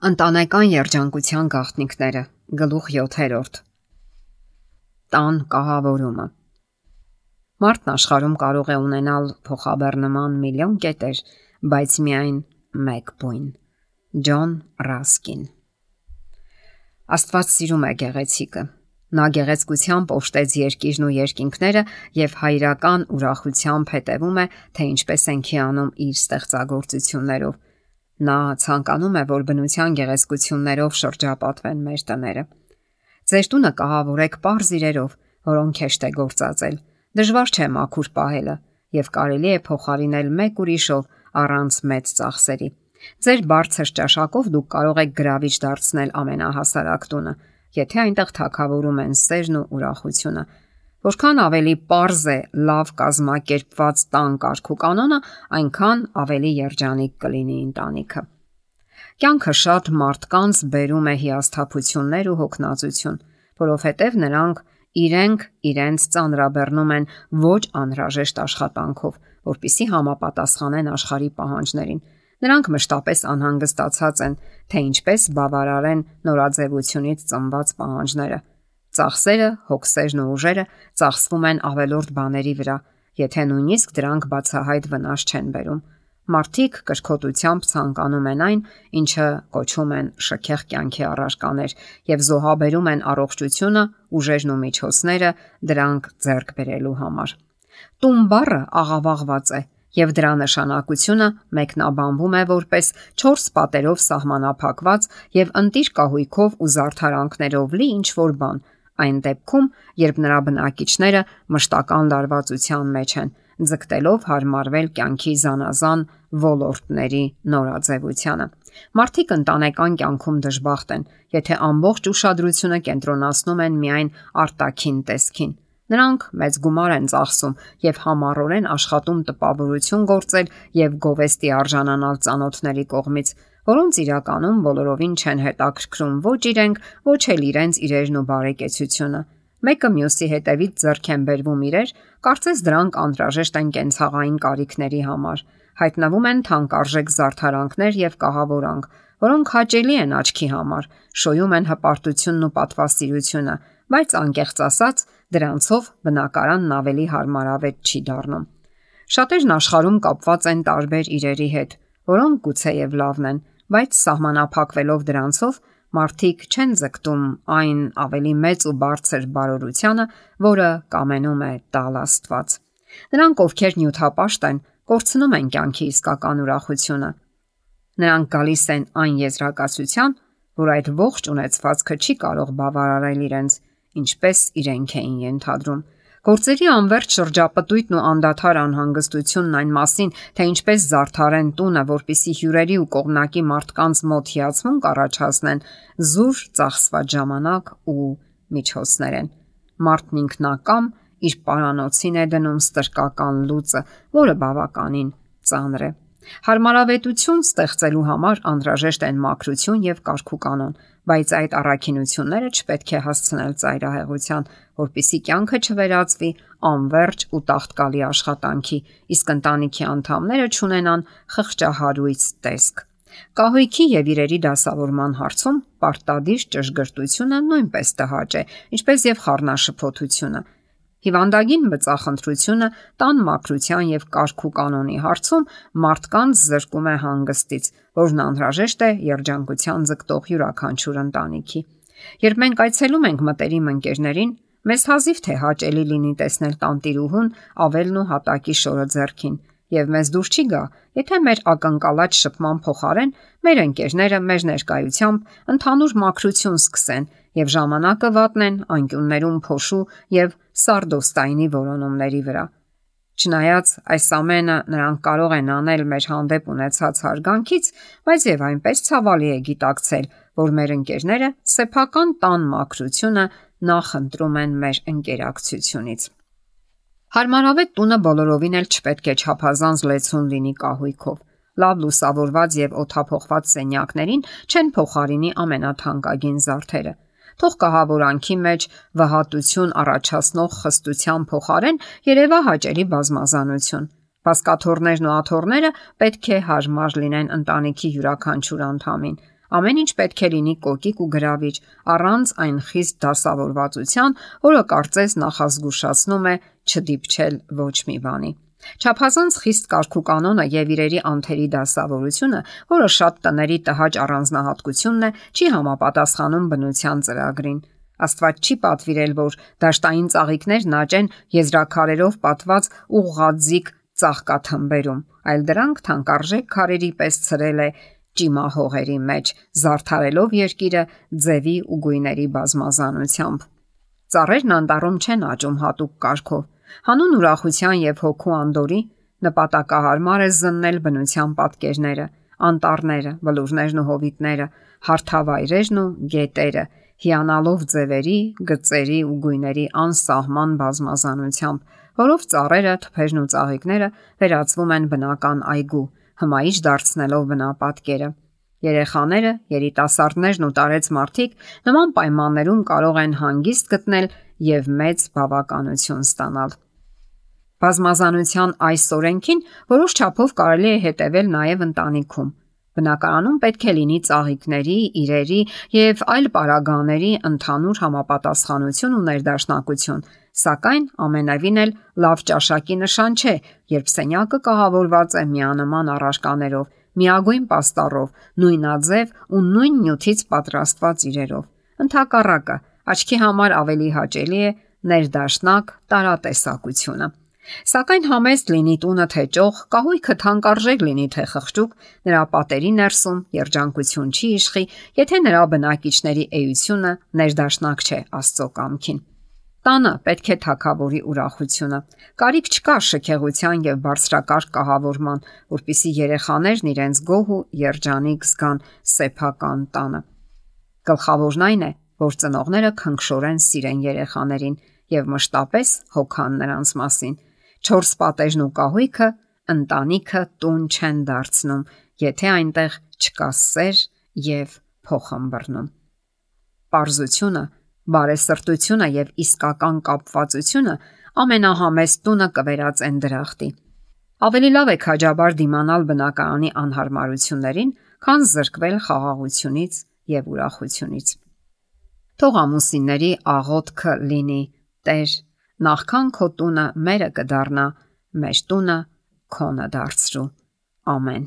Ընտանեկան երջանկության գաղտնիքները գլուխ 7. Տան կահավորումը։ Մարդն աշխարհում կարող է ունենալ փոխաբեռնման միլիոն կետեր, բայց միայն մեկ բույն։ Ջոն Ռասկին։ Աստված սիրում է գեղեցիկը։ Նա գեղեցկությամբ օժտեց երկիրն ու երկինքները եւ հայրական ուրախությամբ հետևում է, թե ինչպես ենք հիանում իր ստեղծագործություններով։ Նա ցանկանում է, որ բնության գեղեցկություններով շրջապատվեն մեր տները։ Ձեր տունը կահավորեք պարզ իրերով, որոնք հեշտ է գործածել։ Դժվար չէ մաքուր պահելը եւ կարելի է փոխարինել մեկ ուրիշով առանց մեծ ծախսերի։ Ձեր բարձր ճաշակով դուք կարող եք գրավիչ դարձնել ամենահասարակ տունը, եթե այնտեղ թագավորում են սերն ու ուրախությունը։ Որքան ավելի պարզ է լավ կազմակերպված տան կարգու կանոնը, այնքան ավելի երջանիկ կլինի ընտանիքը։ Կյանքը շատ մարդկանց բերում է հիասթափություններ ու հոգնածություն, որովհետև նրանք իրենց ծանրաբեռնում են ոչ անհրաժեշտ աշխատանքով, որպեսզի համապատասխանեն աշխարհի պահանջներին։ Նրանք մշտապես անհանգստացած են, թե ինչպես բավարարեն նորաձևությունից ծնված պահանջները։ Ծախսերը, հոգսերն ու ուժերը ծախսվում են ավելորդ բաների վրա, եթե նույնիսկ դրանք բացահայտ վնաս չեն բերում։ Մարդիկ կրկոտությամբ ցանկանում են այն, ինչը կոչում են շքեղ կյանքի առարկաներ, եւ զոհաբերում են առողջությունը, ուժերն ու միջոցները դրանք ձեռք բերելու համար։ Տուն բառը աղավաղված է, եւ դրա նշանակությունը մեկնաբանվում է որպես 4 պատերով սահմանափակված եւ ընտիր կահույքով ու զարդարանքներով լի ինչ-որ բան, այն դեպքում, երբ նրա բնակիչները մշտական լարվածության մեջ են, ձգտելով հարմարվել կյանքի զանազան ոլորտների նորաձևությանը։ Մարդիկ ընտանեկան կյանքում դժբախտ են, եթե ամբողջ ուշադրությունը կենտրոնացնում են միայն արտաքին տեսքին։ Նրանք մեծ գումար են ծախսում եւ համառորեն աշխատում տպավորություն գործել եւ գովեստի արժանանալ ծանոթների կողմից, որոնց իրականում բոլորովին չեն հետաքրքրում ոչ իրենք, ոչ էլ իրենց իրերն ու բարեկեցությունը։ Մեկը մյուսի հետևից ձեռք են բերվում իրեր, կարծես դրանք անհրաժեշտ են կենցաղային կարիքների համար։ Հայտնվում են թանկարժեք զարդարանքներ եւ կահավորանք, որոնք հաճելի են աչքի համար, շոյում են հպարտությունն ու պատվասիրությունը, բայց անկեղծ ասած, դրանցով բնակարանն ավելի հարմարավետ չի դառնում։ Շատերն աշխարհում կապված են տարբեր իրերի հետ, որոնք գուցեև լավն են, բայց սահմանափակվելով դրանցով մարդիկ չեն ձգտում այն ավելի մեծ ու բարձր բարօրությանը, որը կամենում է տալ Աստված։ Նրանք, ովքեր նյութապաշտ են, կորցնում են կյանքի իսկական ուրախությունը։ Նրանք գալիս են այն եզրակացության, որ այդ ողջ ունեցվածքը չի կարող բավարարել իրենց, ինչպես իրենք էին ենթադրում։ Գործերի անվերջ շրջապտույտն ու անդադար անհանգստությունն այն մասին, թե ինչպես զարդարեն տունը, որպիսի հյուրերի ու կողմնակի մարդկանց մոտ հիացմունք առաջացնեն, զուր ծախսված ժամանակ ու միջոցներ են։ Մարդն ինքնակամ իր պարանոցին է դնում ստրկական լուծը, որը բավականին ծանր է։ Հարմարավետություն ստեղծելու համար անհրաժեշտ են մաքրություն եւ կարգուկանոն, բայց այդ առաքինությունները չպետք է հասցնել ծայրահեղության, որպեսզի կյանքը չվերածվի անվերջ ու տաղտկալի աշխատանքի, իսկ ընտանիքի անդամները չունենան խղճահարույց տեսք։ Կահույքի եւ իրերի դասավորման հարցում պարտադիր ճշգրտությունը նույնպես տհաճ է, ինչպես եւ խառնաշփոթությունը։ Հիվանդագին բծախնդրությունը տան մաքրության եւ կարգու կանոնի հարցում մարդկանց զրկում է հանգստից, որն անհրաժեշտ է երջանկության ձգտող յուրաքանչյուր ընտանիքի։ Երբ մենք այցելում ենք մտերիմ ընկերներին, մեզ հազիվ թե հաճելի լինի տեսնել տանտիրուհուն ավելն ու հատակի շորը ձեռքին, եւ մեզ դուր չի գա, եթե մեր ակնկալած շփման փոխարեն մեր ընկերները մեր ներկայությամբ ընդհանուր մաքրություն սկսեն եւ ժամանակը վատնեն անկյուններում փոշու եւ սարդոստայնի որոնումների վրա։ Չնայած այս ամենը նրանք կարող են անել մեր հանդեպ ունեցած հարգանքից, բայց եւ այնպես ցավալի է գիտակցել, որ մեր ընկերները սեփական տան մաքրությունը նախընտրում են մեր ընկերակցությունից։ Հարմարավետ տունը բոլորովին էլ չպետք է չափազանց լեցուն լինի կահույքով։ Լավ լուսավորված եւ օդափոխված սենյակներին չեն փոխարինի ամենաթանկագին զարդերը։ Թող կահավորանքի մեջ վհատություն առաջացնող խստության փոխարեն երևա հաճելի բազմազանություն։ Բազկաթոռներն ու աթոռները պետք է հարմար լինեն ընտանիքի յուրաքանչյուր անդամին։ Ամեն ինչ պետք է լինի կոկիկ ու գրավիչ, առանց այն խիստ դասավորվածության, որը կարծես նախազգուշացնում է չդիպչել ոչ մի բանի։ Չափազանց խիստ կարգուկանոնը եւ իրերի անթերի դասավորությունը, որը շատ տների տհաճ առանձնահատկությունն է, չի համապատասխանում բնության ծրագրին։ Աստված չի պատվիրել, որ դաշտային ծաղիկներն աճեն եզրաքարերով պատված ուղղաձիգ ծաղկաթմբերում, այլ դրանք թանկարժեք քարերի պես ցրել է ճիմահողերի մեջ, զարդարելով երկիրը ձևի ու գույների բազմազանությամբ։ Ծառերն անտառում չեն աճում հատուկ կարգով։ Հանուն ուրախության եւ հոգու անդորի նպատակահարմար է զննել բնության պատկերները, անտառները, բլուրներն ու հովիտները, հարթավայրերն ու գետերը, հիանալով ձևերի, գծերի ու գույների անսահման բազմազանությամբ, որով ծառերը, թփերն ու ծաղիկները վերածվում են բնական այգու, հմայիչ դարձնելով բնապատկերը։ Երեխաները, երիտասարդներն ու տարեց մարդիկ նման պայմաններում կարող են հանգիստ գտնել եւ մեծ բավականություն ստանալ։ Բազմազանության այս օրենքին որոշ չափով կարելի է հետևել նաև ընտանիքում։ Բնակարանում պետք է լինի ծաղիկների, իրերի եւ այլ պարագաների ընդհանուր համապատասխանություն ու ներդաշնակություն, սակայն ամենևին էլ լավ ճաշակի նշան չէ, երբ սենյակը կահավորված է միանման առարկաներով, միագույն պաստառով, նույնաձև ու նույն նյութից պատրաստված իրերով։ Ընդհակառակը, աչքի համար ավելի հաճելի է ներդաշնակ տարատեսակությունը։ Սակայն համեստ լինի տունը թե ճոխ, կահույքը թանկարժեք լինի թե խղճուկ, նրա պատերի ներսում երջանկություն չի իշխի, եթե նրա բնակիչների էությունը ներդաշնակ չէ Աստծո կամքին։ Տանը պետք է թագավորի ուրախությունը։ Կարիք չկա շքեղության եւ բարձրակարգ կահավորման, որpիսի երեխաներն իրենց գոհ ու երջանիկ զգան սեփական տանը։ Գլխավորն այն է, որ ծնողները քնքշորեն սիրեն երեխաներին եւ մշտապես հոգան նրանց մասին։ 4 պատեժն ու կահույքը ընտանիքը տուն չեն դարձնում, եթե այնտեղ չկա սեր եւ փոխհմբռնում։ Պարզությունը, բարեսրտությունը եւ իսկական կապվածությունը ամենահամեստ տունը կվերածեն դրախտի։ Ավելի լավ է քաջաբար դիմանալ բնակարանի անհարմարություններին, քան զրկվել խաղաղությունից եւ ուրախությունից։ Թող ամուսինների աղոթքը լինի. Տեր, նախքան քո տունը մերը կդառնա, մեր տունը քոնը դարձրու։ Ամեն։